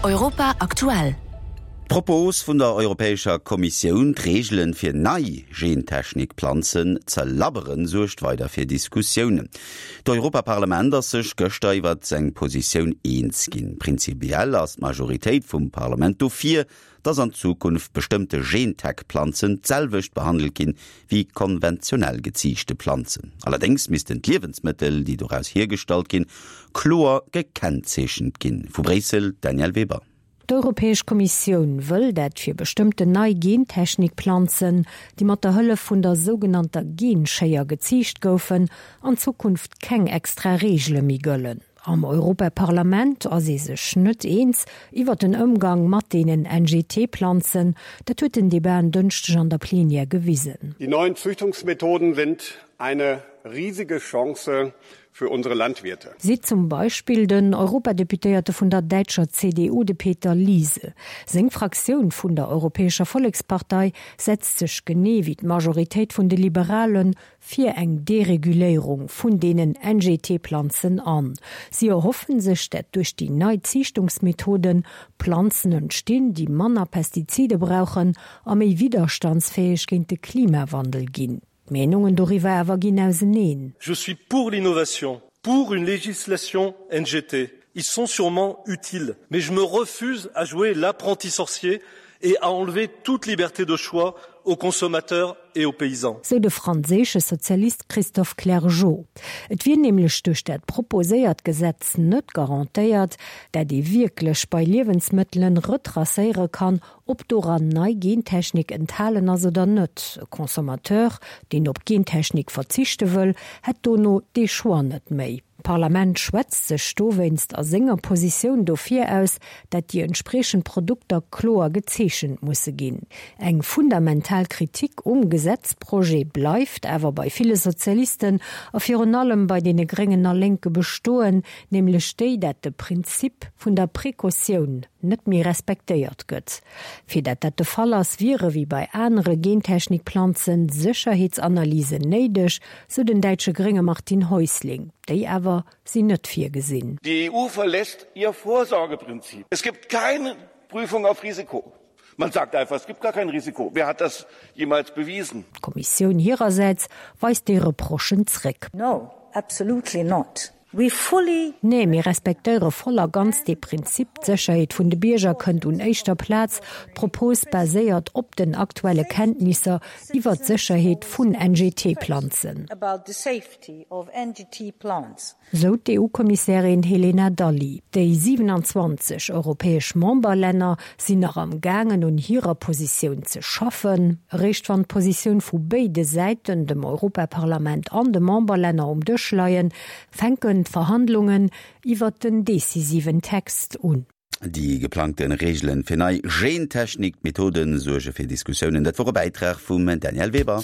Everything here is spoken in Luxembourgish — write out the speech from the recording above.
Europa aktuell. D'Propos vun der Europäescher Kommissioun, d'Reegelen fir nei Gentechnik-Planzen ze labberen, suergt weider fir Diskussiounen. D'Europaparlament ass sech gëschter iwwert seng Positioun eens ginn. Prinzipiell ass d'Majoritéit vum Parlament dofir, dass an Zukunft bestëmmte Gentech-Planzen d'selwecht behandelt ginn, wéi konventionell geziichte Planzen. Allerdéngs missten d'Liewensmëttel, déi doraus hiergestallt ginn, kloer gekennzeechent ginn. Vu Bréissel, d'Danièle Weber. D'Europäesch Kommissioun wëll dat fir bestëmmten nei Gentechnik-Planzen, déi mat der Hëllef vun der sougenannter Genschéier geziicht goufen, an Zukunft keng extra Reegele méi gëllen. Am Europaparlament ass ee sech net eens iwwer den Ëmgang mat deenen NGT-Planzen. Dat huet den Debat en Dënschdeg an der Plenière gewisen. Die neuen Züchtungsmethoden sind eine riesige Chance für unsere Landwirte. Seet zum Beispill den Europadeputéierte vun der däitscher CDU, de Peter Liese. Seng Fraktioun vun der Europäescher Vollekspartei setzt sech genee wéi d'Majoritéit vun de Liberalen fir eng Dereguléierung vun deenen NGT-Planzen an. Si erhoffen sech, dat duerch déi nei Ziichtungsmethoden Planzen entstinn, déi manner Pestizide brauchen a méi widderstandsfäeg géint de Klimawandel ginn. D'Meenungen doriwwer awer ginn auseneen. Je suis pour l'innovation, pour une législation NGT. Ils sont sûrement utiles, mais je me refuse à jouer l'apprenti sorcier et à enlever toute liberté de choix aux consommateurs et aux paysans. Sou de franséische Sozialist Christophe Clergeau. Et wier nämlech duerch dat proposéiert Gesetz net garantéiert, dat ee wierklech bei Liewensmëttelen retracéiere kann, ob doran nei Gentechnik enthalen ass oder net. E Consommateur, deen op Gentechnik verzichte wëll, hätt dono dee Choix net méi. D'Parlament schwätzt sech dowéinst a senger Positioun dofir aus, dat déi entspriechend Produkter kloer gezeechent musse ginn. Eng fundamental Kritik um Gesetzprojet bleift awer bei ville Sozialisten a virun allem bei deene Gréngen a Lénke bestoen, nämlech déi, dat de Prinzip vun der Precautioun net méi respektéiert gëtt. Fir dat dat de Fall ass, wiere wéi bei anere Gentechnikplanzen Sécherheetsanalysen néideg, sou den däitsche Grénge Martin Häusling. Déi awer sinn net virgesinn. Die EU verlässt ihr Vorsorgeprinzip. Es gibt keine Prüfung auf Risiko. Man sagt einfach, es gibt gar kein Risiko. Wer hat das jemals bewiesen? D'Kommissioun hirersäits weist déi Reprochen zréck. No, absolutely not. We fully. Nee, mir respektéiere voll a ganz dee Prinzip, d'Sécherheet vun de Bierger kënnt un éischter Plaz. D'Propos baséiert op den aktuelle Kenntnisser iwwer d'Sécherheet vun NGT-Planzen. Sou d'EU-Kommissärin Helena Dalli. Déi 27 europäesch Memberlänner sinn nach am gaangen un hirer Positioun ze schaffen. Eréischt wann d'Positioun vu béide Säiten, dem Europaparlament an de Memberlänner, um Dësch leien, fänken d'Verhandlungen iwwert den decisiven Text un. Déi geplangte Reegelen fir nei Gentechnik-Methoden suerge fir Diskussiounen. Dat wor e Bäitrag vum Danièle Weber.